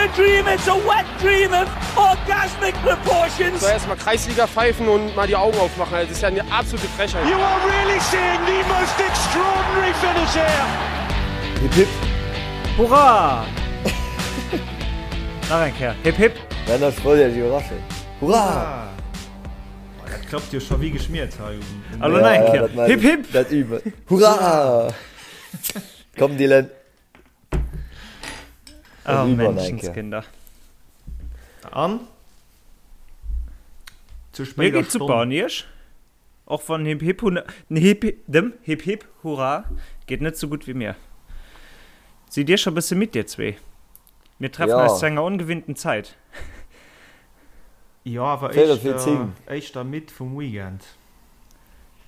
a dream, it's a wet dream of orgasmic proportions. Soll erstmal Kreisliga pfeifen und mal die Augen aufmachen. Das ist ja eine absolute Frechheit. You are really seeing the most extraordinary finish here. Hip hip. Hurra! Nach eng Kéier. Hip hip. Dann ech wollt Iech iwwerraschen. Hurra! Oh, dat klappt jo scho wéi geschmiert hei. Hallo nach eng Kéier. Hip hip. Dat üben. Hurra! Komm Dylan. Oh, Menschenskinder. An? Zu Mir spéider geet super Stonn. an Iech? Och wann Hip Hip Hu den Hip dem Hip Hip Hurra geet net sou gutt wéi mir. Sidd Dir scho bësse midd dir zwee? Mir treffen Ja. eis zu enger ongewinnten Zäit. Jo, awer Véierel vir éischter, 10. éischter midd vum Weekend.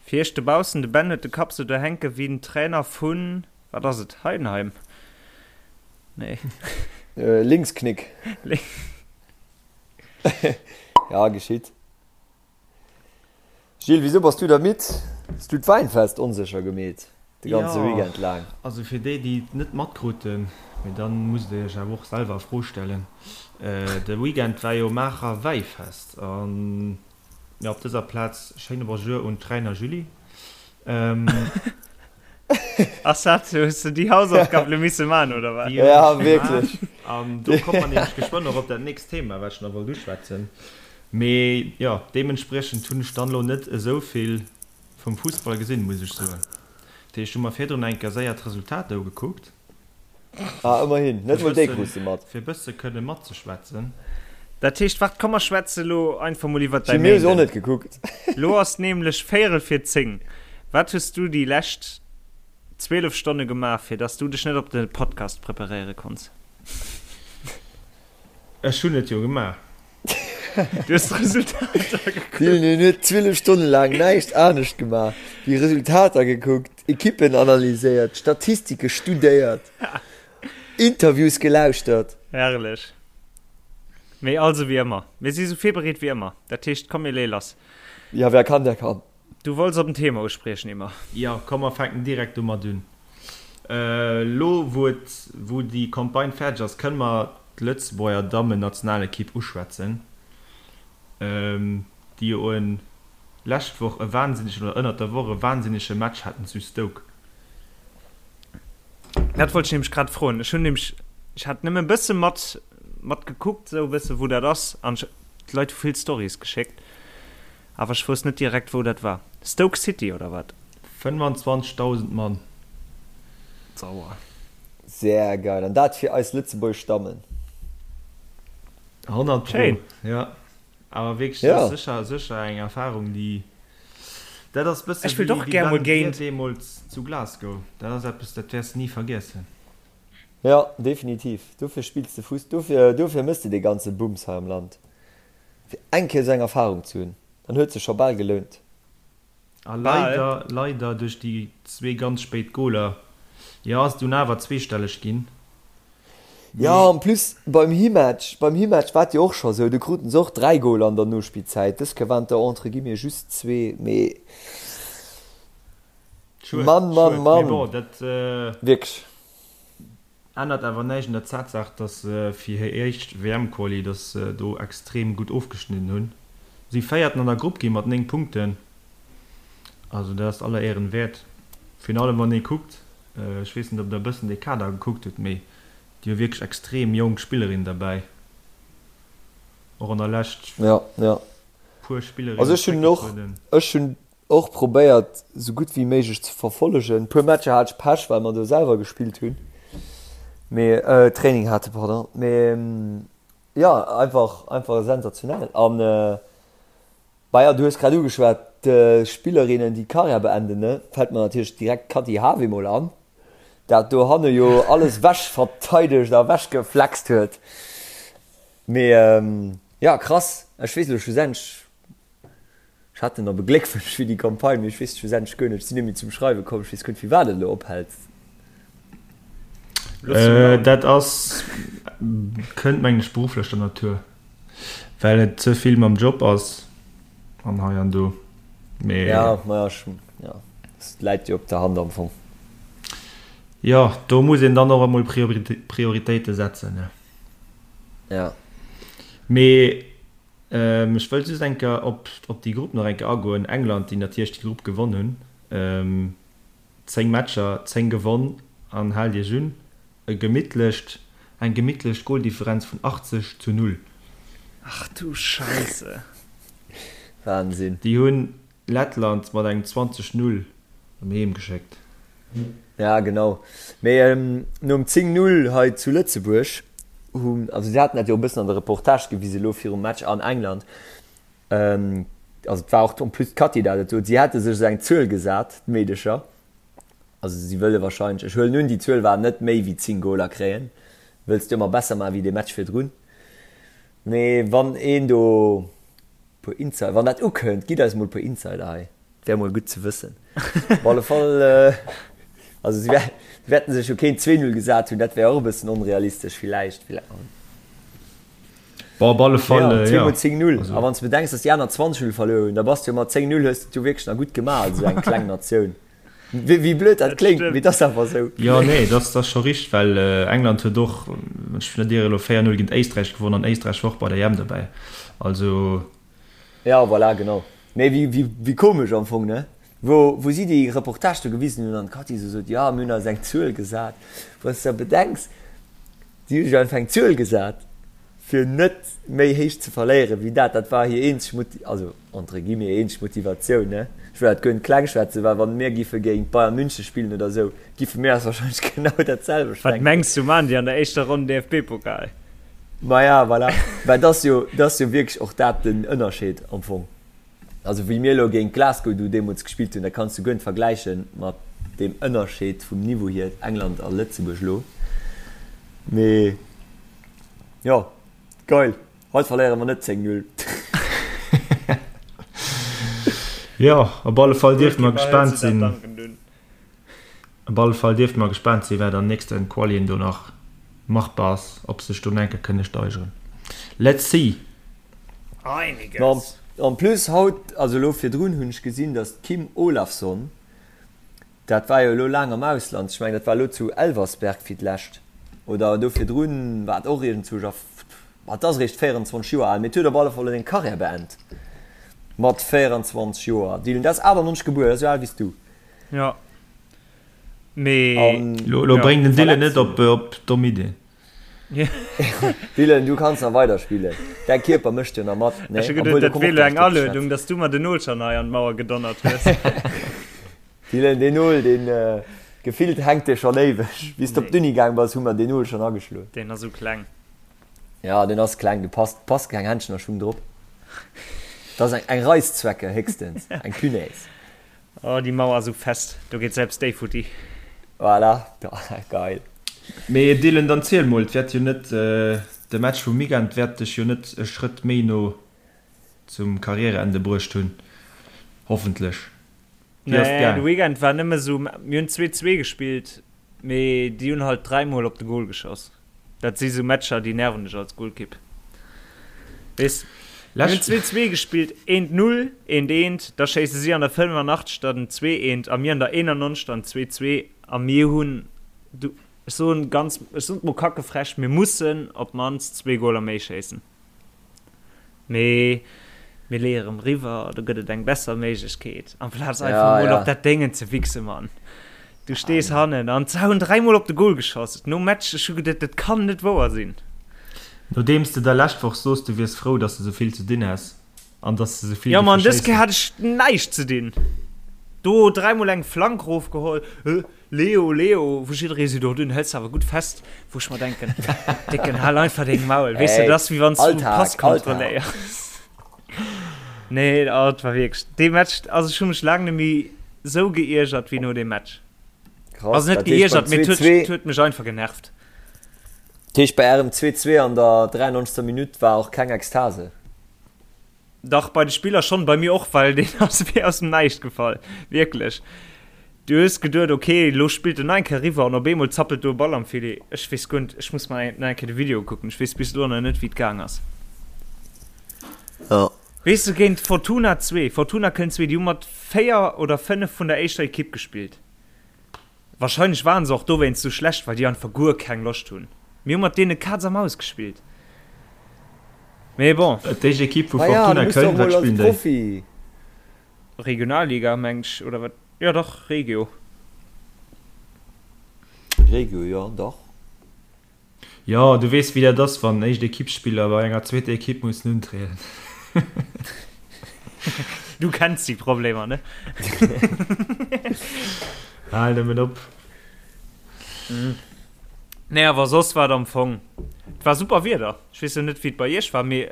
Fir iech dobaussen, de Ben huet de Kapp sou do hänke wéi den Trainer vun, wat ass et, Heidenheim? Nee. Linksknick. Ja, geschitt. Gilles, wisou bass du da midd? Hues du d'Wäinfest onsécher gemeet de ganze Jo, Weekend laang? also fir déi, déi et net matkruten, mee dann musst der iech awer och selwer a Fro stellen, de Weekend war jo Maacher Wäifest an jo, op dëser Plaz schéine Bonjour un d'Reiner Julie. Ass dat, hues de déi Hausaufgab lo misse man oder wat? Déi hunn Ja, ech gemaach wierklech. an do komme mer nämlech geschwënn och op dat nächst Thema, wat ech nach wollt uschwätzen. Mee jo, deementspriechend hunn ech dann elo net esou vill vum Fussball gesinn, muss ech soen. Dat heescht, ech hu mer virdrun eng Kéier séier d'Resultater ugekuckt. Ah, ëmmerhin, net Fir mol déi krus de mat. Fir e bësse kënne matzeschwätzen. Dat heescht, waart, komm mer schwätze lo einfach mol iwwert däi Gilles, mir hu se och Méinden. net gekuckt. Lo ass nämlech véierel vir 10. Wat hues du déi lescht 12 Stonne gemaach, fir dass du dech net op de Podcast preparéiere konns? Ech hunn et jo gemaach. Du hues d'Resultater gekuckt. Dylan hien huet 12 Stonne laang näischt anescht gemaach wéi Resultater gekuckt, Ekippen analyséiert, Statistike studéiert, Interviews gelauschtert. Herrlech. Mee also wéi ëmmer, mir si sou virbereet wéi ëmmer. Dat heescht, komm mir leeë lass. Ja, wer kann, der kann. Du wollts op en Thema uspriechen, Emma. Jo, komm mer fänken direkt domat un. Elo wou et, wou déi Campagne fäerdeg ass, kënne mer d'Lëtzebuerger Dammen-Nationalekipp uschwätzen, déi jo en lescht Woch e wahnsinnegen, oder ënnert der Woch e wahnsinnege Match haten zu Stoke. Dat wollt ech nämlech grad froen. Ech hunn nämlech, ech hat nëmme e bësse mat, mat gekuckt, esou e bësse wou dat ass, an ech, d'Leit hu vill Storys geschéckt. Awer ech wousst net direkt wou dat war. Stoke City oder wat? 25.000 Mann. Sauer. Sehr geil, an dat fir eis lëtzebuergesch Dammen. 100 pro, Schéin. jo. Awer wierklech, Ja. dat ass sécher, sécher eng Erfahrung, déi, dat ass bësse Ech wëllt wéi och wéi gär mol Ben Gvir géint. deemools zu Glasgow. Dat ass eppes, dat wäers de ni vergiessen. Ja, definitiv. Dofir spills de Fuss, dofir, dofir mëss de dee ganze Bums hei am Land. Fir eng Kéier esou eng Erfahrung ze hunn, dann huet sech scho bal gelount. A Bal. leider, leider duerch déi zwee ganz spéit Goler, jo, ass et dunn awer zweestelleg ginn. Jo, Mee. en plus beim Himatch, beim Himatch war et jo och scho sou, do kruten se och 3 Goler an der Nospillzäit. Dës Kéier waren et der entre guillemets just zwee, mee Schued, Mann, Mann, schued. Mee Mann, bon, dat. wierklech. Ännert awer näischt un der Tatsaach, dass se fir hir éischt WM-Quali, dass se do extrem gutt ofgeschnidden hunn. Si Véierten an der Grupp gi mat 9 Punkten, also dat ass aller Éieren wäert. Virun allem wann ee kuckt, ech weess net ob der e bëssen dee Kader gekuckt hutt, mee déi hu wierklech extrem jonk Spillerinnen derbäi, och an der Lescht Ja, ja. puer Spillerinnen Also ech hunn och, zréckgetrueden. ech hunn Och probéiert sou gutt wéi méiglech ze verfollegen. Puer Matcher hat ech Pech well mer do selwer gespillt hunn, mee Training hate pardon, mee jo einfach einfach sensationell an bah jo du hues grad ugeschwat d'Spillerinnen déi d'Karriär beenden ne, fält mer natierlech direkt d'Kathy Hawe mol an, dat dohanne jo alles wech verteidegt a wech geflext huet, mee jo krass, ech weess elo schlussendlech Ech hat en op e Gléckwënsch fir déi Campagne, mee ech weess schlussendlech guer net, ech sinn net méi zum Schreiwe komm, ech weess guer net firwat et elo ophält. Dat ass, kënnt mengen ech berufflecher Natur, well et ze vill mam Job ass an hei an do, mee. Ja, maja, ech, ja, et läit jo op der Hand am Fong. Jo, do muss een dann och emol Prioritéite setzen, ne. Ja. Mee ech wëll just eng Kéier op op déi Grupp nach eng Kéier agoen. England, déi natierlech déi Grupp gewonn hunn. 10 Matcher, 10 gewonn an haalt iech un, e gemittlecht, eng gemittlech Goldifferenz vun 80 zu 0. Ach du Scheisse. Wahnsinn. Déi hunn Lettland mat engem 20, 0 erëm heem geschéckt. Ja genau, mee nom 10, 0 hei zu Lëtzebuerg hunn, also si haten dat jo e bëssen an der Reportage gewisen elo virum Match an England, also et war och en plus d'Cathy dat et sot, si hätte sech esou eng Zuel gesat, d'Meedecher, also si wëlle wahrscheinlech, ech huelen un déi Zuel war net méi wéi 10 Goler kréien, wëlls du ëmmer besser maachen wéi dee Match virdrun, mee wann een do puer Insider, wann dat ukënnt, gitt eis mol puer Insider hei, et wär mol gutt ze wëssen. Op alle Fall, also si wäerten sech jo keen 2, 0 gesat hunn, dat wär och e bëssen onrealistesch villäicht. Bon, op alle Fall, jo. Zweemol 10, 0, a wann s de bedenks, datt déi aner 20, 0 verluer hunn, da bass de jo mat 10, 0 hues de et jo wierklech nach gutt gemaach als esou eng kleng Natioun. Wéi blöd dat kléngt, mee et ass awer esou. Jo, nee, dat ass scho richteg, well England huet och, wann ech mech net ieren, elo 4, 0 géint Éisträich gewonnen an Éisträich war och bei der EM dobäi. Also. Jo, voilà, genau. Mee wéi komesch am Fong, ne? Wou si déi Reportage do gewisen hunn an d'Cathy esou sot, jo, mir hunn eis eng Zuel gesat. Wann s de der bedenks, si hu sech einfach eng Zuel gesat, fir net méi héich ze verléieren wéi dat. Dat war hir eenzeg Moti-, also entre guillemets eenzeg Motivatioun, ne? Ech wëll dat guer net kleng schwätzen, well wann mir giffe géint Bayern München spillen oder esou, giffe mir eis wahrscheinlech genau dat selwecht Wat denken. mengs du, maachen déi an der éischter Ronn DFB-Pokal? Maja, voilà. Well et ass jo, et ass jo wierklech och dat den Ënnerscheed am Fong. Also wéi mir elo géint Glasgow do deemools gespillt hunn, dat kanns du guer net vergläiche mat deem Ënnerscheed vum Niveau hier England a Lëtzebuerg elo. Mee jo, geil, haut verléiere mer net 10, 0. Jo, op alle Fall dierfe mer gespaant sinn. Op alle Fall dierfe mer gespaant sinn, wat an nächsten Qualien do nach machbar ass, ob sech do nach enke kënne steigeren. Let's see! Einiges. En plus haut, also elo virdrun hunn ech gesinn, datt d'Kim Olafsson, dat war jo elo laang am Ausland, ech mengen dat war elo zu Elversberg fir d'lescht oder do virdrun war et och iergendzwousch a, ma et ass eréischt 24 Joer al, mee et huet op alle Fall elo seng Karriär beend mat 24 Joer. Dylan, dat ass 98 gebuer, dat ass esou al wéi s du. Jo, mee. Elo bréng den Dylan net op domm Iddien. Dylan, du kanns nach weider spillen. Däi Kierper mécht jo nach mat, ne? Ech hu geduet, dat wier elo eng Aluedung, dass du mer den Nol schonn hei an d'Mauer gedonnert hues. Dylan, deen Nol, deen gefillt hänkt dee schonn éiweg. Wéi s de op d'Uni gaang bass, hu mer deen Nol schonn ageschloen. Deen ass esou kleng. Ja, deen ass kleng, do passt, passt keng Händschen a Schung drop. Dat ass eng, eng Reißzwecke héchstens, eng Punaise. Oh déi Mauer ass esou fest, do geet selbst déi futti. Voilà, geil. Mee Dylan, dann ziel mol, et wäert jo net, de Match vum Weekend wäert dech jo net e Schrëtt méi no zum Karriereende bruecht hunn, hoffentlech. Wéi ass et gaang? Nee, de Weekend war nëmme sou, mir hunn 2, 2 gespillt, mee déi hunn halt dräimol op de Gol geschoss. Dat si sou Matcher, déi nerven dech als Golkipp. Weess, mir hunn 2, 2 gespillt, eent 0, eent eent, da schéisse si an der 85. Den 2, eent a mir an der 91. Dann 2, 2 a mir hunn, du, ech soen ganz, ech soen et mol kackefrech, mir mussen op d'mannst zwee Goler méi schéissen. Mee mir leeë rëm riwwer, do gëtt et eng besser Méiglechkeet, amplaz einfach mol op dat Déngen ze wichse, Mann. Du stees hannen an se hunn dräimol op de Gol geschoss nom Match. Ech hu geduet, dat kann net wouer sinn. Nodeems de der lescht Woch soos, du wiers frou, dass de sou vill ze dinn häss an dass de sou vill Jo, géife Mann, dës Kéier schéissen. hat ech näischt ze dinn. Do dräimol eng Flank rofgeholl. Leo, Leo, wou jidderee seet, oh dun hëls de awer gutt fest, wou ech mer denken, Décken, hal einfach deng Maul, weess de, dat ass wéi wann s du Alltag, Pass Alltag. kontrolléiers. Nee, oh, et war wierklech, dee Match, also ech hu mech laang net méi sou geiergert wéi no deem Match. Krass, Also net dat heescht beim geiergert, mee et huet, 2-2, et huet mech einfach genervt. dat heescht bei ärem 2-2 an der 93. Minutt war och keng Ekstase? Dach, bei de Spiller schonn, bei mir och, well deen ass wéi aus dem Näischt gefall, wierklech. Du hues geduet, ok, elo spillt en nach eng Kéier eriwwer an op eemol zappelt do e Ball am Filet. Ech weess guer net, ech muss mer nach eng Kéier de Video ukucken, ech weess bis elo nach net, wéi et gaang ass. Jo. Weess de, géint Fortuna 2, Fortuna Köln 2, déi hu mat 4 oder 5 vun der éischter Ekipp gespillt. Wahrscheinlech waren se och dowéinst sou schlecht, well déi einfach guer keng Loscht hunn. Mir hu mat deene Kaz a Maus gespillt. Mee bon. D'éischt Ekipp vu Ma ja, Fortuna du muss doch Köln, wat mol als spillen déi? Profi. Regionalliga, mengt ech, oder wat? Jo dach, Regio. Regio, jo, dach. Jo, du weess wéi dat ass, wann éischt Ekippsspiller bei enger zweeter Ekipp mussen untrieden. Du kenns déi Problemer, ne? Hal nëmmen op. Nee, awer soss war et am Fong, et war super Wieder. Ech weess jo net, wéi et bei iech war, mee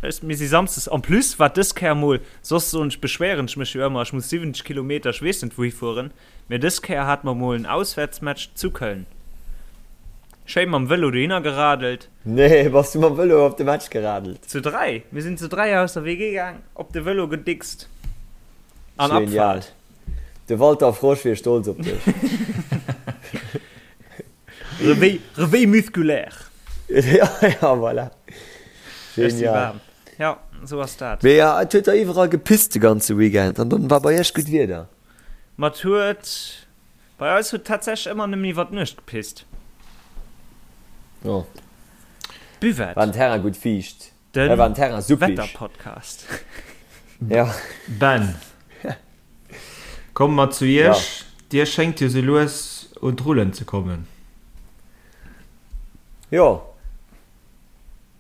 ech, mir si samsdes, en plus war dës Kéier mol, soss soen ech, beschwéieren ech mech jo ëmmer, ech muss 70 Kilometer, ech weess net wouhi fueren, mee dës Kéier hate mer mol en Auswäertsmatch zu Köln. Schéi mam Vëlo dohinner geradelt. Nee, bass du mam Vëlo op de Match geradelt? Zu 3, mir sinn zu 3 aus der WG gaang, op de Vëlo gedickst an Genial. Abfahrt. De Walter Frosch wier stolz op dech. Réveil, réveil musculaire. Ja, ja, voilà. Ech si Genial. waarm. Ja, sou ass dat. Mee ja, et huet der iwwerall gepisst de ganze Weekend an dann war bei iech gutt Wieder. Ma et huet, bei eis huet tatsächlech ëmmer nëmmen iwwer d'Nuecht gepisst. Oh. Buvette. War den Terrain gutt fiicht? Den War den Terrain suppig? Wetterpodcast. Ja. Ben, komme mer zu Ja. Iech. Dir schéngt jo sou lues un d'Rullen ze kommen. Jo.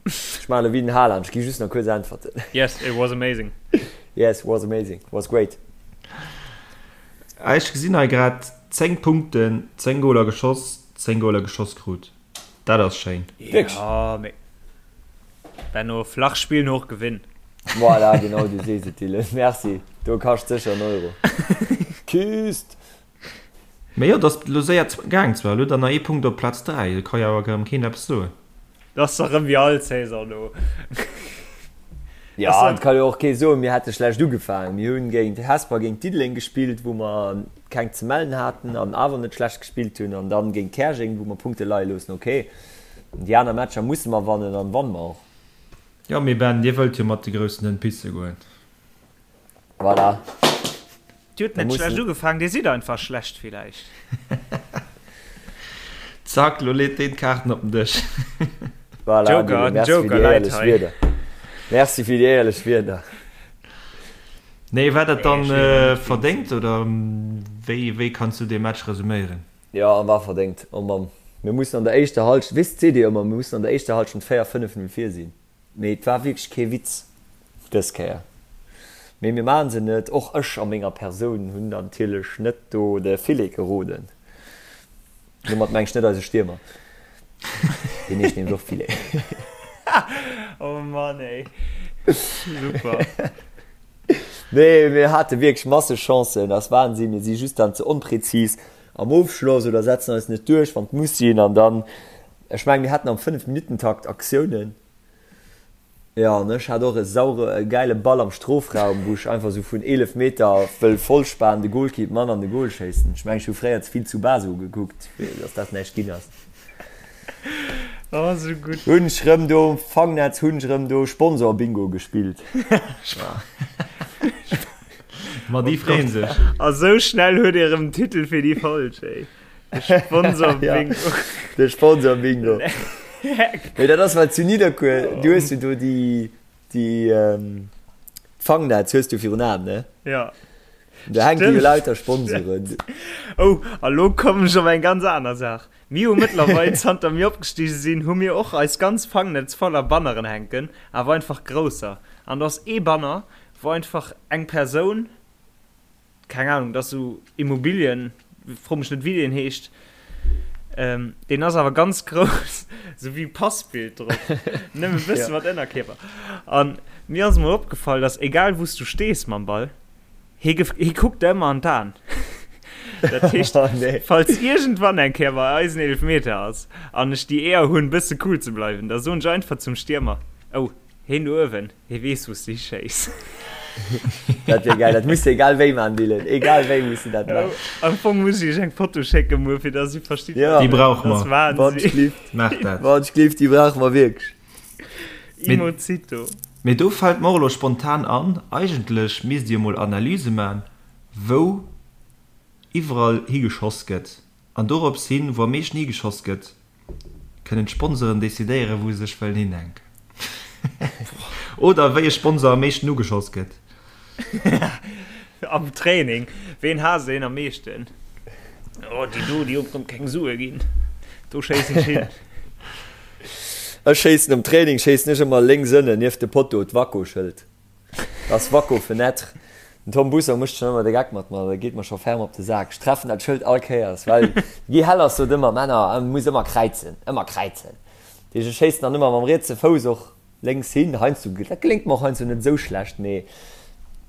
Ech maachen elo wéi den Haaland, ech gi just nach kuerz Äntwerten. Yes, it was amazing. Yes, was amazing, was great. Ech gesinn hei grad 10 Punkten, 10 Goler geschoss, 10 Goler geschoss krut. Dat ass schéin. Wierklech? Ja, mee Benno, flach spillen, hoch gewinnen. Voilà, genau, du sees et, Dylan. Merci. Do kascht sécher en Euro. Küsst! Mee jo, et ass elo séier gaang zwar. Elo dann nach ee Punkt op Plaz 3, do ka jo awer erëm keen eppes soen. Dat ass dach rëm wéi all Saison do. Jo, et ka jo och kee soen, mir hätte schlecht ugefaangen. Mir hunn géint Hesper, géint Diddeleng gespillt, wou mer keng ze mellen haten an awer net schlecht gespillt hunn, an dann géint Käerjeng, wou mer Punkte leie loossen. Ok, déi aner Matcher musse mer wannen an wanne mer och. Jo, mee Ben, Dir wëllt jo mat de groussen Hënn pisse goen. Voilà. Dir hutt net schlecht ugefaangen, Dir sidd einfach schlecht villäicht. Zack, lo leet deen d'Kaarten op den Dësch. Voilà, Joker, Dylan, den merci fir Joker déi läit éierlech hei. Wierder. Merci fir déi éierlech Wierder. Nee, war dat Nee, dann ech will net géint verdéngt sinn. oder wéi, wéi kanns du dee Match resuméieren? Jo, war verdéngt. Oh Mann, mir mussen an der éischter Halschent, weess, seet Dir ëmmer, mir mussen an der éischter Halschent 4, 5, 0 vir sinn. Mee et war wierklech kee Witz dës Kéier. Mee mir maachen se net. Och ech a menger Persoun hunn natierlech net do de Filet geroden. Domat mengen ech net eise Stiermer. Deen heescht nämlech och Filet. Oh Mann ey. Super. Nee, mir hate wierklech masseg Chancen. Ass Wahnsinn. Mir si just dann ze onpräzis am Ofschloss oder setzen eis net duerch, wann et muss sinn. An dann, ech mengen, mir haten am Fënnef-Minutten-Takt Aktiounen. Jo, an ech hat och e saure, e gäile Ball am Strofraum, wou ech einfach sou vun 11 Meter wëll vollspan de Golkipp man an de Gol schéissen. Ech mengen, ech hu fréier ze vill Tsubasa gekuckt, fir dass dat näischt ginn ass. Oh, sou gutt. Hunn ech rëm do um Fangnetz hunn ech rëm do Sponsor-Bingo gespillt. Ma déi freeën sech. A sou schnell huet ee rëm den Titel fir déi Folg, ey. De Sponsor Bingo. Ja, de Sponsor Bingo. Mee dat ass well zu Nidderkuer, du hues jo do déi, déi ähm, Fangnetz hues du virun Aen, ne? Ja. Da hänke jo lauter Sponsoren. Oh, a lo kommen ech op eng ganz aner Saach. Mir hu mëttlerweil, zanter mir opgestige sinn, hu mir och eis ganz Fangnetz voller Banneren hänken, awer einfach grousser. An do ass ee Banner, wou einfach eng Persoun, keng Ahnung, dat ass sou Immobilien, fro mech net wéi deen heescht, ähm, deen ass awer ganz grouss, sou wéi Passbild drop, nëmme e bësse mat Ënnerkierper. An mir ass emol opgefall, dass egal wou s du stees mam Ball, hie gef hie kuckt der ëmmer an d'Aen. Dat heescht, Oh nee. falls iergendwann eng Kéier bei eis en Eelefmeter ass an ech déi Éier hunn, bësse cool ze bleiwen, da soen ech einfach zum Stiermer, Oh, Heen do uewen, hee weess wous de hischéiss. Dat wier geil, dat muss de egal wéi man Dylan, egal wéi muss de dat man. Am Fong muss ech iech eng Foto schécken muer fir dass dir verstitt Ja. Déi brauche Dat ass mer. Wann Wahnsinn. schlift, Maach dat. wann schlift, déi brauche mer wierklech. Mee, Imozito. mee do fält mer och elo spontan an, eigentlech misst Dir emol Analyse man, wou iwwerall higeschoss gëtt. An dorops hin, wou am meeschten higeschoss gëtt, kënnen d'Sponsoren decidéieren, wou se sech wëllen hinhänken. Oder wéi e Sponsor am meeschten ugeschoss gëtt. Am Training, ween haasst een am meeschten? Oh, déi do, déi hunn rëm keng Sue ginn. Do schéissen ech hin. Ech schéissen am Training schéissen ech ëmmer lénks ënnen nieft de Potto, d'Waco-Schëld. Das Waco Fenêtre. Den Tom Busser mécht schonn ëmmer de Geck mat mer, dat geet mer scho ferm op de Sak. Ech treffen dat Schëld all Kéiers, well de Guy Hellers sot ëmmer, Männer, e muss ëmmer kräizen, ëmmer kräizen. Dat heescht, ech schéissen dann ëmmer mam rietse Fouss och lénks hin. Heiansdo, dat geléngt mer och heiansdo net esou schlecht, mee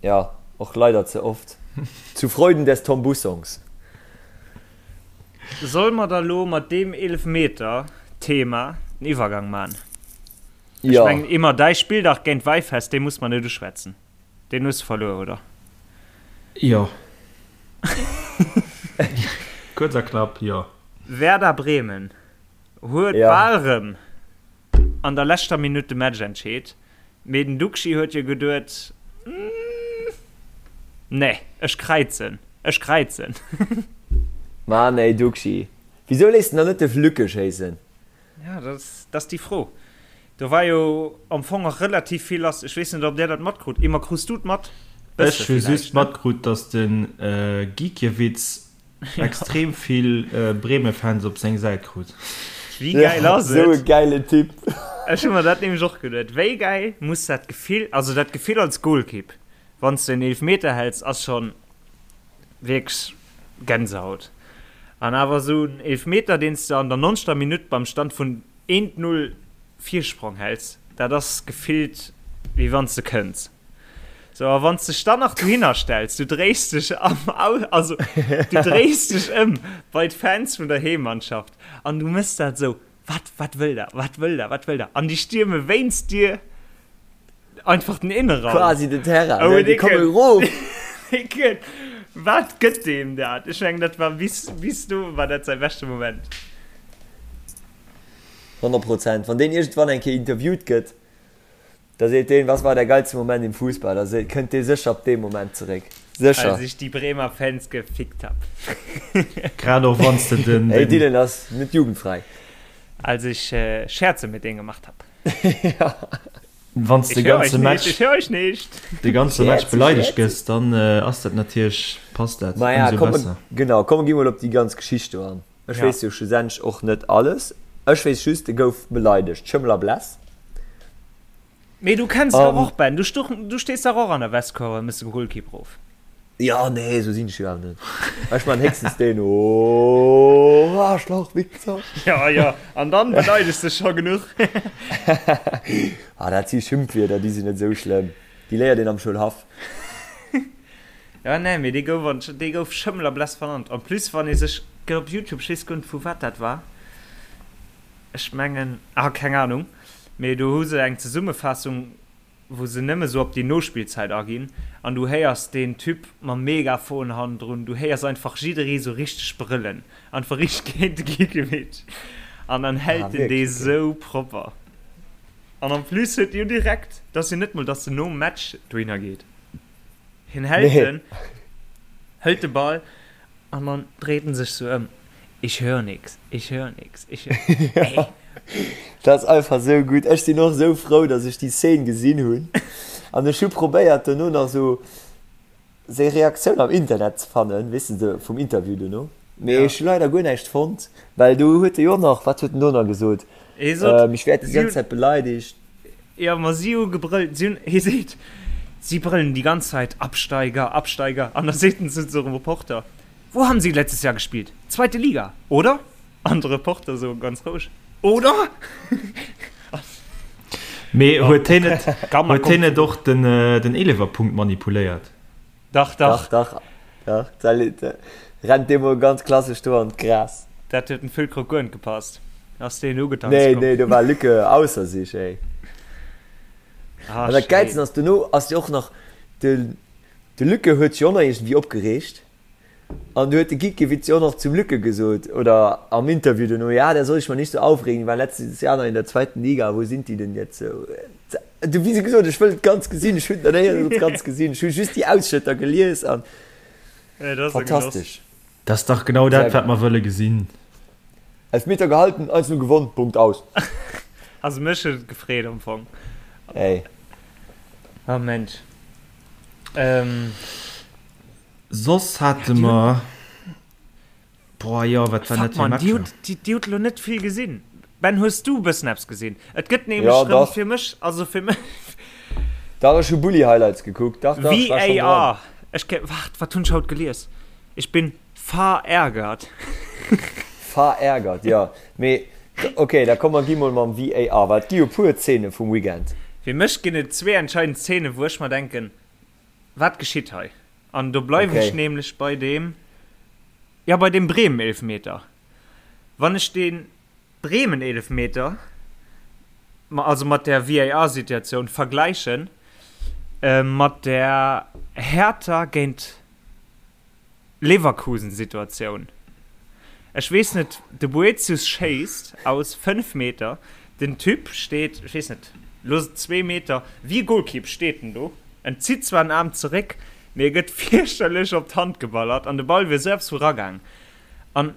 jo, och leider ze oft. Zu Freuden des Tom Bussongs. Solle mer da lo mat deem Eelefmeter-Thema den Iwwergang man? Ech Jo. mengen immer däi Spilldag géint Wäifest, dee muss mer net uschwätzen. Deen hues de verluer, oder? Jo. Kuerz a knapp, jo. Werder Bremen huet Ja. bal rëm an der leschter Minutt de Match entscheet, mee den Duxi huet jo geduet, Nee, ech kräizen, ech kräizen. Mann ey Duxi, wisou léiss de dann net de Lücke schéissen? Ja, dat ass déi Fro. Do war jo am Fong och relativ vill lass. Ech weess net, ob Där dat matkrut. Emma, krus du et mat? Ech hu just matkrut, datt de Gikiewicz extrem vill Bremen-Fans op seng Säit krut. Wéi gäil ass et? Esou e gäilen Typ. Ech hu mer dat nämlech och geduet. Wéi gäil muss dat Gefill, also dat Gefill als Golkipp, wann s de en Eelefmeter häls, ass schonn wierklech Gänsehaut. An awer esou en Eelefmeter, deen s de an der nonzegter Minutt beim Stand vun eent Null Virsprong häls, dat ass gefillt wéi wann s de kënns. Sou, a wann s dech dann nach dohinner stells, du dréis dech am Au, also du dréis dech ëm bei d'Fans vun der Heemmannschaft an du mëss dat esou, Wat, wat wëll der, wat wëll der, wat wëll der? An déi stierme wéinst dir einfach den Innenraum. Quasi den Terrain, Oh, ne? Déi komme erof. Déi Wat gëtt deem dat? Ech mengen, dat war bis, bis do war dat säi beschte Moment. 100 Prozent. Wann deen iergendwann eng Kéier interviewt gëtt, Da seet deen, Was war der geilste Moment im Fußball? Da seet, kënnt dee sécher op dee Moment zeréck. Sécher. Als ich die Bremer Fans gefickt hab. Grad och wann s de den. Hey, Dylan ass net jugendfrei. Als ich Scherze mit denen gemacht hab. Ja. Wann s de Ich hör euch ganze nicht, Match, ich hör euch nicht. de ganze Match Scherze, beleidegt Scherze. gëss, dann ass dat natierlech, passt dat Maja, ëmsou komm, besser. genau, komm, gi mol op déi ganz Geschicht do an. Ech Ja. weess jo schlussendlech och net alles. Ech weess just, e gouf beleidegt. Schëmmel a Bless. Mee du kenns dach An. och, Ben, du stuch, du stees dach och an der Westkurve a mëss de Golkipp rof. Jo, nee, esou sinn ech jo awer net. Ech man héchstens deen, Oh, Arschloch, Wichser! Ja, ja, an dann beleidegst de scho genuch. Ah, dat si Schimpfwierder, déi sinn net esou schlëmm. Déi léiert een am Schoulhaff. Ja nee, mee dee gouf an, dee gouf Schëmmel a Bless vernannt. En plus wann ee sech, gëtt op Youtube, ech weess guer net vu wat dat war, ech mengen, ah keng Ahnung, mee do hu se eng Zesummefaassung wou se nëmme sou op déi Nospillzäit aginn an du héiers deen Typ mam Megafon hannendrun, du héiers einfach jidderee sou richteg brëllen, einfach richteg géint de Gikiewicz an dann Ah hält en dee wierklech, okay. sou propper. An en plus huet jo direkt, dat ass jo net mol dass en nom Match dohinner geet. Hien hält Nee. en, hëlt de Ball an dann dréit en sech sou ëm, Ich hör nix, ich hör nix, ich hör. Ey. Dat ass einfach sou gutt. Ech sinn och sou frou, dass ech déi Szene gesinn hunn. An ech hu probéiert dono nach sou seng Reaktioun am Internet ze fannen, weess de, sou vum Interview dono. Mee Ja. ech hu leider guer näischt fonnt, well do huet e jo och nach, wat huet en do nach gesot? Hie sot, Ähm, ich werd déi si ganz hunn. Zäit beleidigt. Jo, ma si hu gebrëllt, si hunn, hie seet, si brëllen déi ganz Zäit, Absteiger, Absteiger. An da seet en zu sengem Reporter, Wo haben Sie letztes Jahr gespielt? Zweite Liga, oder? An de Reporter esou ganz roueg, Oder? Mee huet hien net, huet hien net och den, den Eelewerpunkt manipuléiert? Dach, dach. Dach, dach, dach. Da rennt dee mol ganz klassesch do an d'Gras. Dat huet dem Füllkrug guer net gepasst. Ass deen ugetanzt Nee, komm. nee, do war Lücke ausser sich, ey. Ah, An dat Gäilsten schéin. ass, dono ass jo och nach, de, de Lücke huet sech och nach iergendwéi opgereegt. An du huet de Gikiewicz jo och nach zum Lücke gesot, oder am Interview dono, ja, der soll sich mal nicht so aufregen, die waren letztes Jahr noch in der zweiten Liga, wo sind die denn jetzt? So, du, wéi gesot, ech wëll et ganz gesinn, ech hunn et nach néierens ganz gesinn, ech hu just déi Ausschnëtter gelies an Ja, dat ass e Genoss. fantastesch. Dat ass dach genau Sehr dat, wat gutt. mer wëlle gesinn. Elfmeter gehalten, 1-0 gewonnen, Punkt, aus. Also mech huet et gefreet am Fong. Ey. Oh Mensch. Ähm. Soss hate mer. Boah, jo, wat waren dat fir Matcher? Dir hutt elo net vill gesinn. Ben, hues du e bëssen eppes gesinn? Et gëtt nämlech rëm fir mech, also fir mech. Dach, ech hu Bulli-Highlights gekuckt. Dach, dach, ech war schonn dran. VAR. Ech ke, waart, wat hunn ech haut gelies? Ich bin verärgert. Verärgert, jo. Mee, ok, da komm mer gi mol mam VAR, well et gi jo puer Zeene vum Weekend. Fir mech ginn et zwee entscheidend Zeenen, wou ech mer denken, Wat geschitt hei? An do bleiwen ech nämlech bei deem, jo, bei deem Bremen-Eelefmeter. Wann ech dee Bremen-Eelefmeter, also mat där VAR-Situatioun vergläichen mat der Hertha géint Leverkusen-Situatioun. Ech weess net, de Boetius schéisst aus 5 Meter, den Typ steet, ech weess net, looss et zwee Meter, wéi e Golkipp steet en do, en zitt zwar den Aarm zeréck, mee e gëtt fierchterlech op d'Hand geballert an de Ball wier esou eppes vu ragaang. An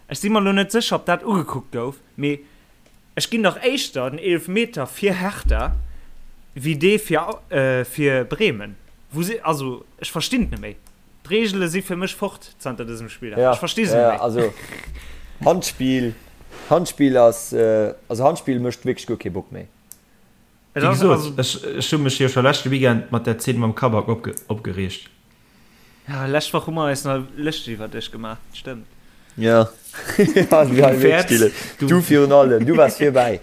ech si mer elo net sécher, ob dat ugekuckt gouf, mee ech ginn dach éischter den Eelefmeter fir Hertha wéi dee fir, fir Bremen. Wou si, also ech verstinn et net méi. D'Reegele si fir mech fort zanter dësem Spilldag. Ja, Ech versti se net ja, méi. also Handspill, Handspill ass, also Handspill mécht wierklech guer kee Bock méi. Et Wéi ass gesot, also. ech, ech hu mech jo scho leschte Weekend mat där Zeen mam Kabak opge, opgereegt. Ja, lescht Woch hu mer eis nach lëschteg iwwer dech gemaach, dat stëmmt. Ja, ja, Du wäerts, du du, virun allem, du waars virbäi.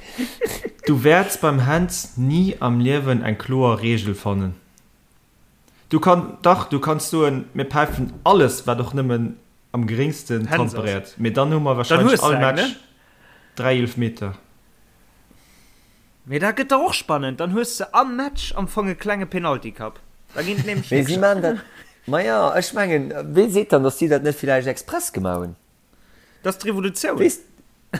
du wäerts beim Hänz ni am Liewen eng kloer Reegel fannen. Du kann, dach, du kanns soen, mir päifen alles, wat och nëmmen am geréngsten Händs d'Hand ass. beréiert, mee dann hu mer Dann wahrscheinlech hues de all eng, Match ne? 3 Eelefmeter. Mee dat gëtt dach och spannend, dann hues de am Match am Fong e klenge Penaltycup. Da ginn et nämlech Mee si nächst. maan dat, maja, ech mengen, wee seet dann, datt si dat net villäicht express gemaach hunn? Dat ass d'Revolutioun. Weess,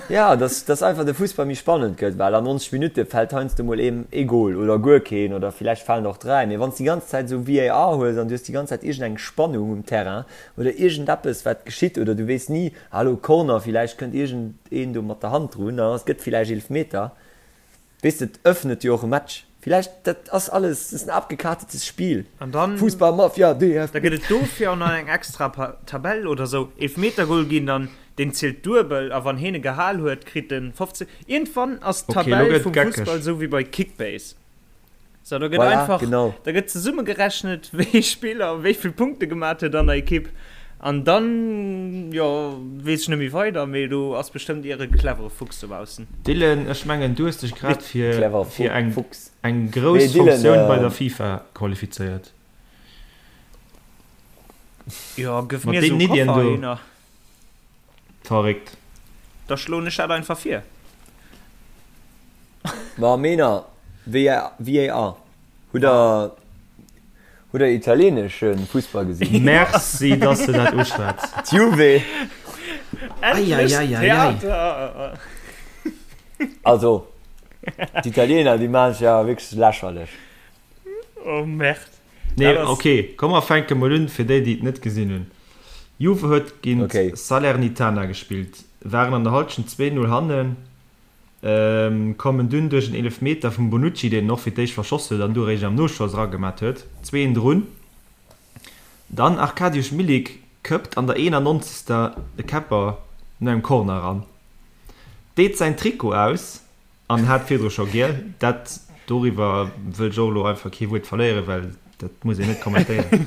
ja, dass, dass einfach de Fussball méi spannend gëtt, well an 90 Minutte fält heiansdo mol een ee Gol oder guer keen oder villäicht falen och 3, mee wann s de déi ganz Zäit esou VAR hues an du hues déi ganz Zäit iergendeng Spannung um Terrain oder iergendeppes wat geschitt oder du weess ni, ah elo Corner, villäicht kënnt iergendeen do mat der Hand drun an et gëtt villäicht Eelefmeter. Weess de, et öffnet jo och e Match. Villäicht, dat ass alles, dat ass en abgekartetes Spiel. An dann, Fussballmafia, da DFB. gëtt et dofir och nach eng extra Tabell oder sou. Eelfmetergol ginn dann, deen zielt duebel a wann heen e gehal huet, kritt en 15. Iergendwann ass Ok, elo d'Tabell gëtt et vum geckeg. Fussball sou wéi bei Kickbase. Sou, do gëtt Voilà, einfach, genau. da gëtt zesummegerechnet, wéi ee Spiller wéi vill Punkte gemat huet an der Ekipp. An dann, jo, weess ech net méi weider, mee do ass bestëmmt ier e clevere Fuchs dobaussen. Dylan, ech mengen du hues dech grad fir Clever fir eng Fuchs. eng Nee, grouss Dylan, Funktioun bei der FIFA qualifizéiert. Jo, gëff Mat mir esou deenen e Iddien Koffer do. heihinner. Verréckt. Da schloen ech dat einfach vir. Ma Männer, VAR, hutt der hutt der italienesche Fussball gesinn? Merci, dass de dat uschwätz. D'Juve! Endlech Eieieiei. Theater! Also, d'Italiener, déi maachen sech awer wierklech lächerlech. Oh Merde. Nee, Dat ass. ok, komm mer fänke mol un, fir déi, déi et net gesinn hunn. Juve huet géint Ok. Salernitana gespillt, waren an der Halschent 2, 0 hannen, kommen dunn duerch en Eelefmeter vum Bonucci, deen en och fir d'éischt verschoss huet an du eréischt am Noschoss eragemat huet, 2, 1 drun. Dann Arkadiusz Milik këppt an der 91. de Käpper no engem Corner eran, deet säin Trikot aus An hat virdru scho giel. Dat, doriwwer wëll ech och elo einfach kee Wuert verléieren, well dat muss een net kommentéieren.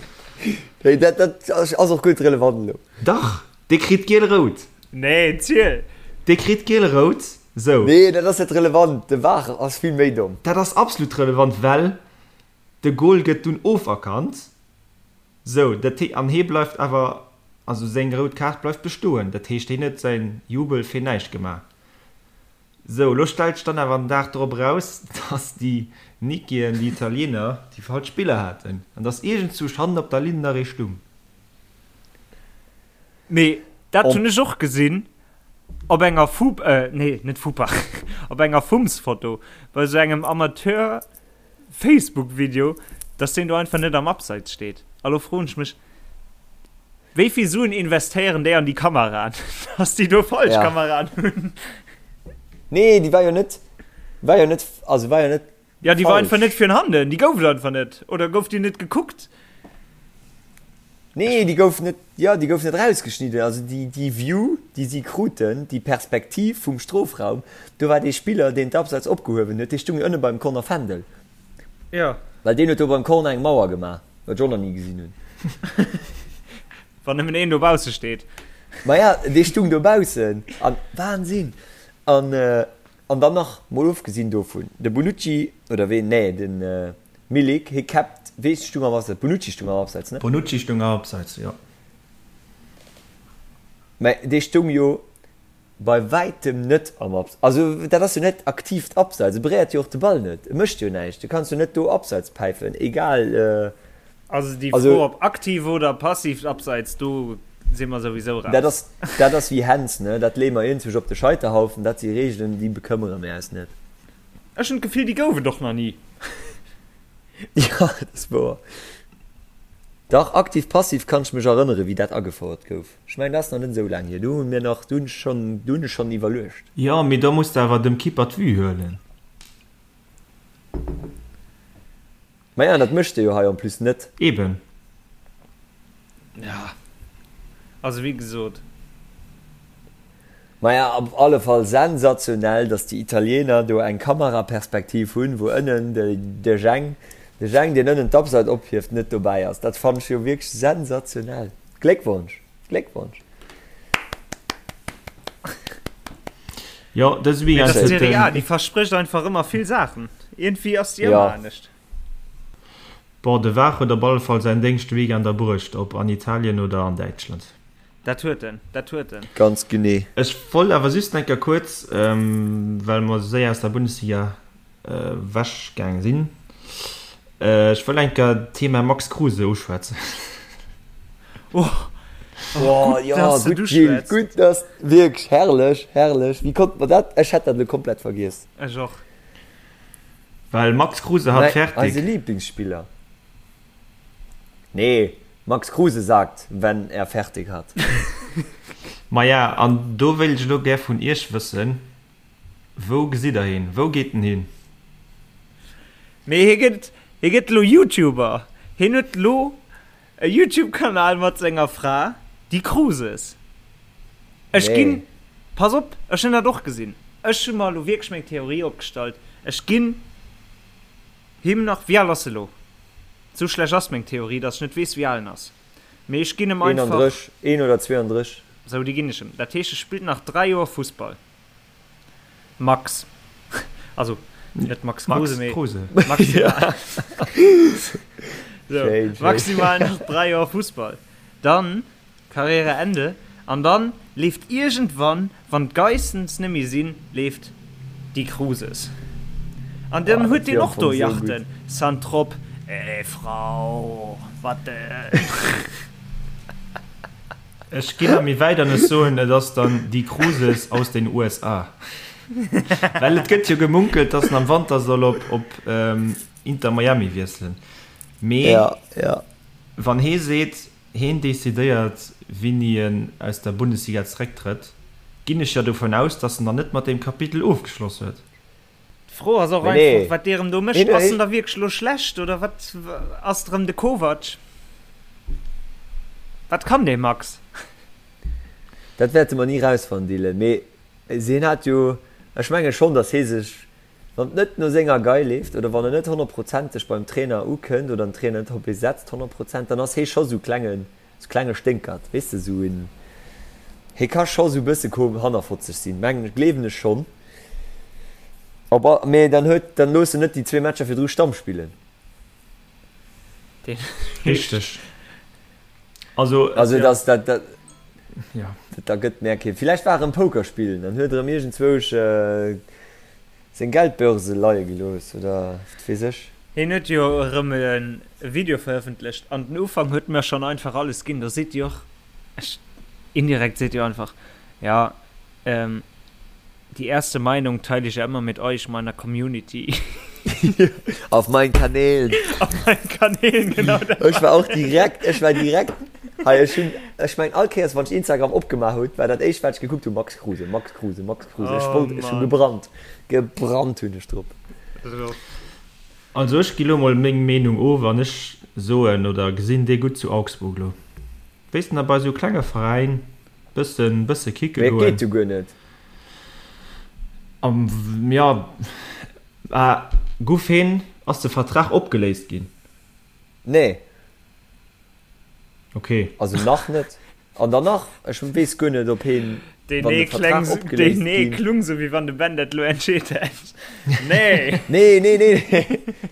Nee, dat, dat ass och guer net relevant elo. Dach, dee kritt giel-rout. Nee, ziel! Dee kritt giel-rout, sou. Nee, dat ass net relevant. De VAR ass vill méi domm. Dat ass absolut relevant, well de Goal gëtt dunn oferkannt, sou, dat hee, an hee bleift awer, also seng rout Kaart bleift bestoen. Dat heescht, hien huet säin Jubel fir näischt gemaach. Sou, elo stellt sech dann awer den Dag drop eraus, dass déi Nikien, déi Italiener, déi falsch Spiller haten an dass iergendzwousch hannen op der Linn nach ee stung. Mee dat hunn ech och gesinn op enger Fu, nee, net Fupa, op enger Fums-Foto bei sou engem Amateur-Facebook-Video, dass deen do einfach net am Abseits steet. A lo froen ech mech, Wéi vill Suen investéieren déi an déi Kameraen, dass déi do falsch Ja. Kameraen hunn? Nee, déi war jo net, war jo net, also war jo net. Ja, déi war einfach net fir handen, déi gouf et einfach net. Oder gouf déi net gekuckt? Nee, déi gouf net, jo, déi gouf net rausgeschnidden. Also déi, déi View, déi si kruten, déi Perspektiv vum Strofraum, do war dee Spiller, deen d'Abseits opgehuewen huet, dee stung jo ënne beim Corner Fändel. Jo. Well deen huet do beim Corner eng Mauer gemaach, wat ech och nach ni gesinn hunn. Wann nëmmen een dobausse steet. Maja, dee stung dobaussen an, Wahnsinn! An, an dann nach, mol ofgesinn dovun, de Bonucci, oder ween, nee, den Milik, hie käppt, wee stung am Abseits? Bonucci stung am Abseits, ne? Bonucci stung am Abseits, jo. Mä dee stung jo bei wäitem net am Abseits. Also dat ass jo net aktiivt Abseits, e beréiert jo och de Ball net, e mécht jo näischt. Du kanns jo net do Abseits päifen, egal. Also déi Fro op aktiv oder passiivt Abseits, do si mer souwisou raus. Dat ass, dat ass wéi Händs, ne? Dat leeë mer iergendwousch op de Scheiterhaufen, dat si Reegelen, déi bekëmmere mir eis net. Ech hunn d'Gefill, déi gouf et och nach ni. Jo, dat ass wouer. Dach, aktiv, passiv kann ech mech erënneren, wéi dat agefouert gouf. Ech mengen, dat ass nach net esou laang hier. Do hu mir nach, do hunn ech schonn, do hunn ech schonn iwwerluecht. Jo, mee da muss de awer dem Keeper d'Vue huelen. Maja, dat mécht e jo hei en plus net. Eben. Ja, also wéi gesot. Maja, op alle Fall sensationell, dass déi Italiener do eng Kameraperspektiv hunn, wou ënnen de Jeng, de Jeng, deen ënnen d'Abseit ophieft, net dobäi ass. Dat fannen ech jo wierklech sensationell. Gléckwonsch! Gléckwonsch! Jo, dëse Weekend huet den. Serie A, déi versprécht einfach ëmmer vill Saachen. Iergendwéi ass déi ëmmer anescht. Bon, de Var huet op alle Fall säin Déngscht de Weekend erbruecht, ob an Italien oder an Däitschland. Dat huet en, dat huet en. Ganz genee. Ech wollt awer just eng Kéier kuerz, well mer esou séier aus der Bundesliga ewech gaang sinn, ech wëll eng Kéier d'Thema Max Kruse uschwätzen. Oh, oh, gutt, dass de et uschwätz. Gutt, dass, wierklech herrlech, herrlech. Wéi konnt mer dat, ech hätt dat elo komplett vergiess. Ech och. Well Max Kruse hat fertig. Eise Lieblingsspieler. Nee, Max Kruse sagt, wenn er fertig hat. Maja, an do wéilt ech elo gär vun Iech wëssen, Wou gesitt der hien? Wou geet en hin? Mee hie gëtt, hie gëtt elo YouTuber. Hien huet elo e YouTube-Kanal mat senger Fra, déi Kruses. Ech ginn, pass op, ech hunn dat och gesinn. Ech hu mer elo wierklech meng Theorie opgestallt. Ech ginn him nach, wéi al ass e lo? Sou schlecht ass meng Theorie, datt ech net weess, wéi al en ass. Mee ech ginn em einfach. 31, 1 oder 32. Sou, déi ginn ech em. Dat heescht, e spillt nach 3 Joer Fussball. Max. Also, net Max Kruse, mee. Kruse. Maximal. Sou, maximal nach 3 Joer Fussball. Dann Karriere Ende. An dann leeft iergendwann, wann d'Geissens net méi sinn, leeft Die Kruses. An dann huet deen och do Yachten, Saint-Trope, Ey Frau, wat denn? Ech ginn nach méi wäit an ech soen, et ass dann Die Kruses aus den USA. Well et gëtt jo gemunkelt, dass en am Wanter soll op op Inter Miami wiesselen. Mee wann hee seet, Heen decidéiert, wéini en aus der Bundesliga zerécktrëtt. Ginn ech jo dovun aus, dass en dann net mat deem Kapitel ofgeschloss huet. D'Fro ass och einfach, wat dee rëm do mécht. Ass en da wierklech elo schlecht oder wat ass rëm de Kovac? Wat kann dee Max? Dat wäerte mer ni rausfannen, Dylan. Mee hien hat jo, ech menge schonn, datt hie sech, wann et net no senger Gei leeft oder wann en net honnertprozenteg beim Trainer ukënnt oder den Trainer net op hie setzt 100%, dann ass hie scho sou klengen, sou klenge Sténkert, weess de, sou en, hie ka scho sou bësse ko hannerfotzeg sinn, mengen ech, gleewen ech schonn. Op all, mee dann huet, dann looss en net déi zwee Matcher virdru Stamm spillen. Richteg. Also, also ja. das, dat, dat, ja. Da gëtt mär kee. Villäicht war erëm Poker spillen, dann huet erëm iergendzwousch äh, seng Geldbörse leie gelooss oder wat weess ech. Hien huet jo erëm e Video verëffentlecht an den Ufank huet mer schonn einfach alles ginn. Do seet jo och, ech, indirekt seet jo einfach, ja, ähm, Die erste Meinung teile ich ja immer mit euch, meiner Community. Auf meinen Kanälen. Auf meinen Kanälen, genau. Ech war och direkt, ech war direkt, hei ech hunn, ech meng all Kéiers wann ech Instagram opgemaach hutt, war dat éischt wat ech gekuckt hunn, Max Kruse, Max Kruse, Max Kruse. Ech wollt, ech hu gebrannt, gebrannt hunn ech drop. Also ech gi lo mol meng Meenung of an ech soen oder gesinn dee gutt zu Augsburg lo. Wéis de na bei sou klenge Veräin bëssen bësse kicke Mee et goen. geet jo guer net. Am jo ah guff heen ass de Vertrag opgeléist ginn? Nee. Ok. Also nach net. An dann nach, ech weess guer net, ob heen, Deen wann de nee Vertrag kleng, opgeléist deen nee ginn. klung sou wéi wann de Ben dat lo entscheet hätt. Nee! Nee, nee, nee,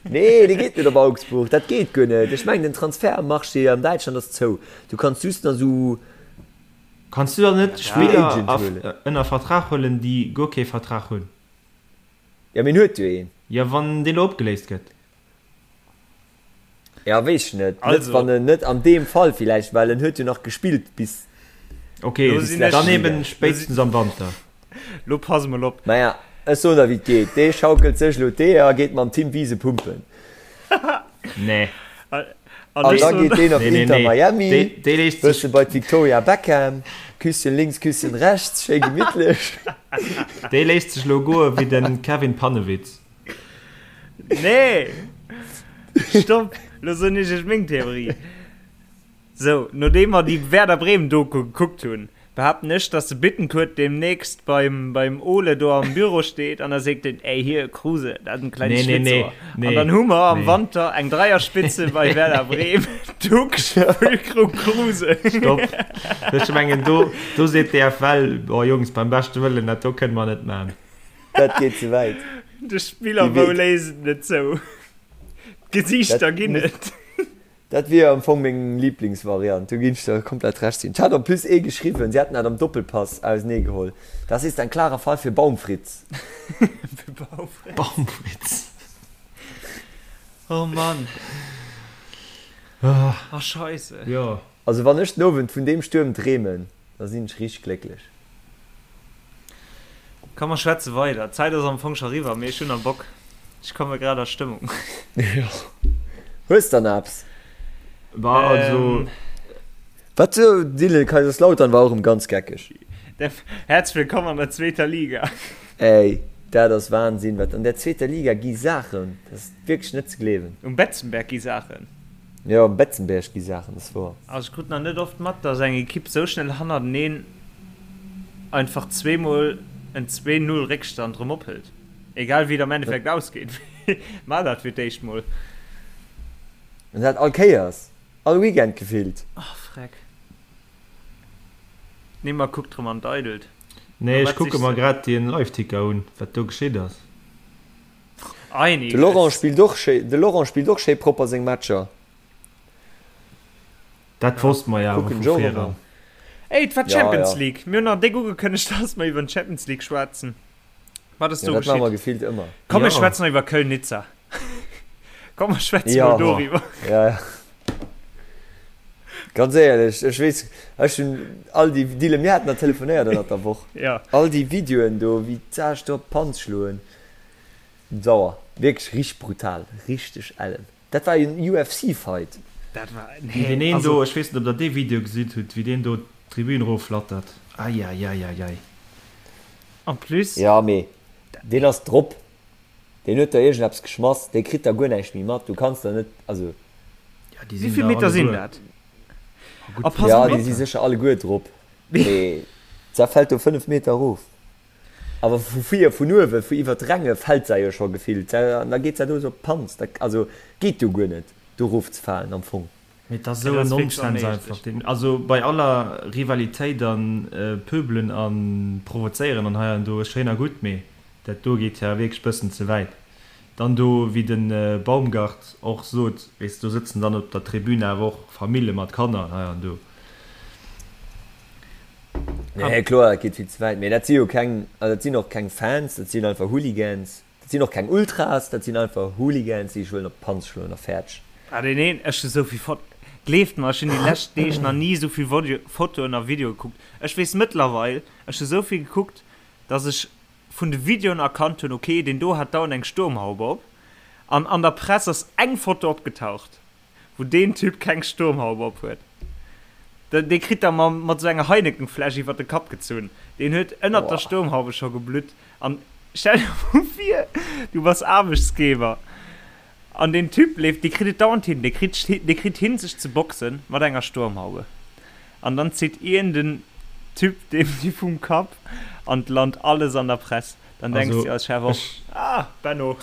nee, dee geet net op Augsburg, dat geet guer net. Ech mengen den Transfertmarché an Däitschland ass zou. Du kanns just nach sou Kanns du dann net Free Spiller Agent a huelen. ënner Vertrag huelen, déi guer kee Vertrag hunn? Ja, mee en huet jo een. Jo, wann dee lo opgeléist gëtt. Ja, weess ech net. Net Also. wann en net an deem Fall villäicht, well en huet jo nach gespillt bis. Ok, Lo sinn ech. dann eben spéitstens am Wanter. Lo pass mol op. Maja, ech soen der wéi et geet, dee schaukelt sech elo d'Eeër a geet mam Tim Wiese pumpen. Nee. An An ech da soen. geet deen op Nee, nee, Inter nee. Miami, Dee, dee léisst sech. bësse bei d'Victoria Beckham, Küsschen links, Küsschen rechts, schéi gemittlech. Dee léisst sech lo goe wéi de Kevin Pannewitz. Nee! Stopp! Lo soen ech iech meng Theorie. Sou, nodeem mer déi Werder Bremen Doku gekuckt hunn, behaapten ech, dass de Bittencourt demnächst beim, beim Ole do am Büro steet an da seet en, Ey, hier, Kruse, dat ass en klengt Nee, nee, nee, Schlitzohr. nee, An dann hu mer am nee. Wanter eng Dreierspitze bei Werder Bremen, Ducksch, Füllkrug, Kruse. Stopp! Ech mengen, do, do seet d'DFL, Oh Jungs, beim beschte Wëllen, dat do kënne mer net maachen. Dat geet ze wäit. De Spiller wou léisst et net zou. D'Gesiichter ginn et. Dat wier am Fong meng Lieblingsvariant, do ginn ech der komplett Recht ginn. Et hat en plus ee geschriwwen, si hätten dat am Doppelpass auseneegeholl, Das ist ein klarer Fall für Baumfritz. Für Baumfritz. Baumfritz. Oh Mann. Oh Scheisse. Jo. Also wann ech den Owend vun deem Stuerm dreemen, da sinn ech richteg glécklech. Komm mer schwätze weider. D'Zäit ass am Fong scho riwwer, mee ech hunn nach Bock. Ech komme grad a Stëmmung. Jo. Hues der nach eppes? Bah, also. Wat sou, Dylan, Kaiserslautern war och erëm ganz geckeg. Häerzlech wëllkomm an der zweeter Liga. Ey, dat ass Wahnsinn, wat an der zweeter Liga gi Saachen, dat ass wierklech net ze gleewen. Um Betzenberg gi Saachen. Jo, um Betzenberg gi Saachen, dat ass wouer. Also ech krut nach net oft mat, dass eng Ekipp sou schnell hannerteneen einfach zweemol en 2, 0 Réckstand rëm ophëlt. Egal wéi et am Endeffekt ausgeet, mä dat fir d'éischt mol. An dat all Kéiers, all Weekend gefillt. Oh freck. Neymar kuckt rëm an d'Eidelt. Nee, ech kucke mer grad den Liveticker un, wat do geschitt ass. De Laurent spillt och schéi, de Laurent spillt och schéi propper seng Matcher. Dat wosste mer jo awer Kucken vu ech och vir ëmmer. eran. Ey, et war Ja, d'Champions ja. League. Mir hunn nach déck ugekënnegt, dass mer iwwer d'Champions League schwätzen. Wat ass Ja, do dat maache mer geschitt? gefillt ëmmer. Komm, mir Ja. schwätzen nach iwwer Köln-Nizza. Komm, mer schwätzen Ja. mol doriwwer. Ja, ja. Ganz éierlech, ech weess, ech hunn all déi, Dylan, mir haten nach telefonéiert ënnert der Woch. Ja. All déi Videoen do, wéi d'Saasch do op d'Panz schloen. Sauer. Wierklech richteg brutal. Richteg ellen. Dat war en UFC Fight. Dat war, Wéi nee, deen een also. do, ech weess net ob der dee Video gesitt hutt, wéi deen do d'Tribün erofflattert. Eieieiei. En plus. Ja mee deen ass drop. Deen huet der iergendeppes geschmass. Dee kritt da guer näischt méi mat. Du kanns der net, also. Ja, déi Wéi sinn vill da Meter sinn alleguer. dat? Oh, gutt A pass Ja, mol déi op. si sécher alleguer drop. Mee da fält do 5 Meter erof. Awer vu vir, vun uewe, vu iwwer d'Ränge fält se jo scho gefillt. An da geet se do esou op d'Panz. Dat, also, geet jo guer net, do erofzefalen am Fong. Mee et ass Dat esou en ass wierklech Nonsens onméiglech. einfach. Deen, also bei aller Rivalitéit an Pöbelen a Provozéieren an hei an do, schéin a gutt, mee dat do geet jo wierklech bëssen ze wäit. Dann do, wéi de Baumgart och sot, weess de, do sëtzen dann op der Tribün awer och Famille mat Kanner an hei an do. Nee, kloer, dat geet vill ze wäit. Mee dat si jo keng, also dat sinn och keng Fans, dat sinn einfach Hooligans. Dat sinn och keng Ultras, dat sinn einfach Hooligans, déi sech wëllen op d'Panz schloen a fäerdeg. Ah deen een, ech hu souvill Fot, gleeft mer, ech hunn déi lescht Deeg nach ni souvill Fotoen a Videoe gekuckt. Ech weess mëttlerweil, ech hu souvill gekuckt, dass ech vun de Videoen erkannt hunn, ok, deen do hat dauernd eng Sturmhaube op. An an der Press ass eng Foto opgetaucht. Wou deen Typ keng Sturmhaube op huet. Dee kritt der mat sou enger Heineken-Fläsch iwwert de Kapp gezunn. Deen huet ënnert der Sturmhaube scho geblutt. An stell dir mol vir, du bass Aarbechtsgeber. An deen Typ leeft, dee kritt et dauernd hin, dee kritt, dee kritt hin sech ze boxen mat enger Sturmhaube. An dann zitt ien den Typ deem déi vum Kapp an 't lant alles an der Press. Dann denks Also de als Chef och, ech. Ah, Benno!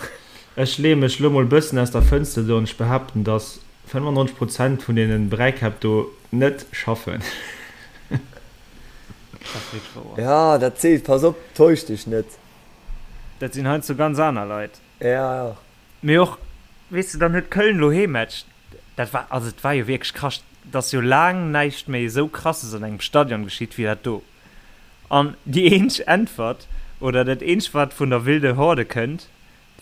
Ech leeë mech lo mol bëssen aus der Fënster do an ech behaapten, dass 95 Prozent vun deenen Bräikäpp do net schaffen. Dat ass wierklech wouer. Ja, dat seet, pass op, täusch dech net. Dat sinn heiansdo ganz aner Leit. Ja, ja. Mee och, weess de, dann huet Köln elo Heemmatch. Dat war, also et war jo wierklech krass, et ass jo laang näischt méi esou Krasses an engem Stadion geschitt wéi dat do. An déi eenzeg Äntwert, oder dat eenzegt wat vun der Wilde Horde kënnt,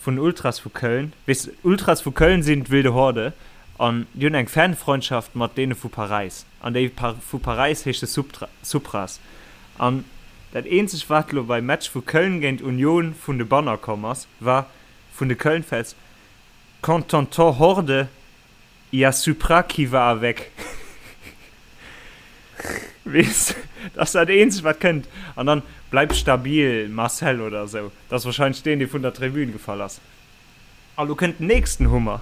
vun den Ultras vu Köln, weess de, d'Ultras vu Köln sinn d'Wilde Horde an déi hunn eng Fanfreundschaft mat deene vu Paräis an déi vu Paräis heesche Supras. An dat eenzegt wat elo beim Match vu Köln géint Union vun de Banner komm ass, war vun de Köln-Fans, Quand t'entends Horde, y a Supra qui va avec. Weess, dat ass dat eenzegt wat kënnt. An dann, Bleib stabil, Marcel oder esou. Dat ass wahrscheinlech deen, dee vun der Tribün gefall ass. A lo kënnt den nächsten Hummer.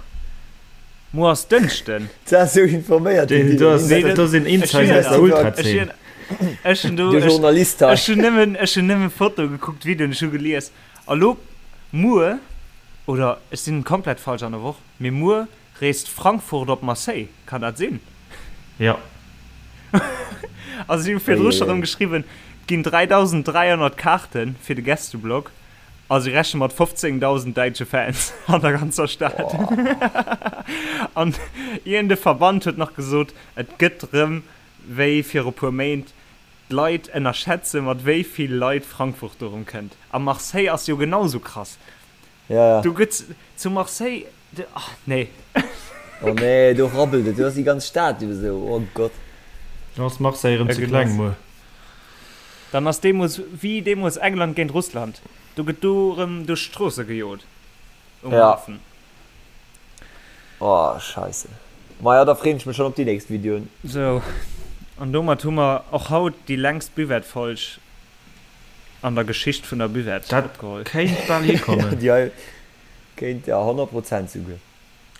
Muer ass Dënschden. Du ass sou informéiert, den Do Dylan. ass, Nee, do sinn Insider aus der Ultrazeen. Ech hunn do, De Journalist hei. ech hunn nëmmen, ech hunn nëmmen Foto gekuckt, Videoen, ech hu gelies. A lo, muer, oder ech sinn komplett falsch an der Woch, mee muer reest Frankfurt op Marseille, kann dat sinn? Jo. Also si hu virdru scho rëm geschriwwen, et ginn 3.300 Kaarte fir de Gästeblock a si rechne mat 15.000 däitsche Fans an der ganzer Stad. An iergend e Verband huet nach gesot, et gëtt rëm wéi viru puer Méint, d'Leit ënnerschätze mat wéi vill Leit Frankfurt do rëm kënnt. A Marseille ass jo genau sou krass. Ja, ja. Do gëtt zu Marseille, ach nee. Oh nee, do rabbelt et, do ass déi ganz Stad jo esou, oh Gott. Dann ass Marseille erëm ze kleng muer. Dann ass deemools wéi deemools England géint Russland, do gëtt do erëm duerch d'Stroosse gejot um Hafen. Oh scheisse. Maja, da freen ech mech schon op déi nächst Videoen. Sou, an domat hu mer och haut déi längst Buvette-Folg an der Geschicht vun der Buvette Dat opgeholl. kéint bal hikommen. Déi hei kéint, ja, 100 Prozent souguer.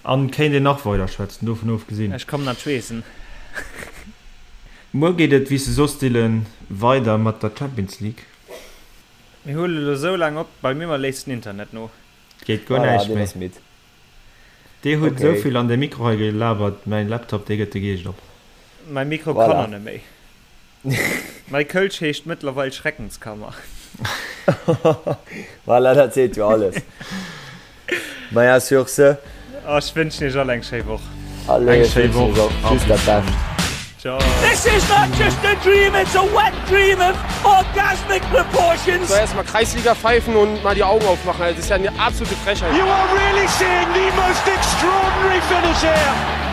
An kéint een nach weider schwätzen, dovun ofgesinn. Ech kommen an d'Schweessen. Muer geet et, wéi s de soss, Dylan, weider mat der Champions League. Mir huele lo sou laang op, bei mir léisst den Internet no. Et geet guer Voilà, näischt deen méi. ass midd. Dir hutt Okay. esou vill an de Mikro hei gelabert, mäin Laptop dee gëtt de Geescht op. Mäi Mikro kann Voilà. och net méi. Mäi Kölsch heescht mëttlerweil Schreckenskammer. Voilà, dat seet jo alles. Maja, sur ce. Ech wënschen iech all eng schéi Woch. Allez, Eng ech schéi wënschen iech Woch och a just dat bis dann. Bescht. Ciao. This is not just a dream, it's a wet dream of orgasmic proportions. So erstmal Kreisliga pfeifen und mal die Augen aufmachen. Also, das ist ja eine absolute Frechheit. You are really seeing the most extraordinary finish here.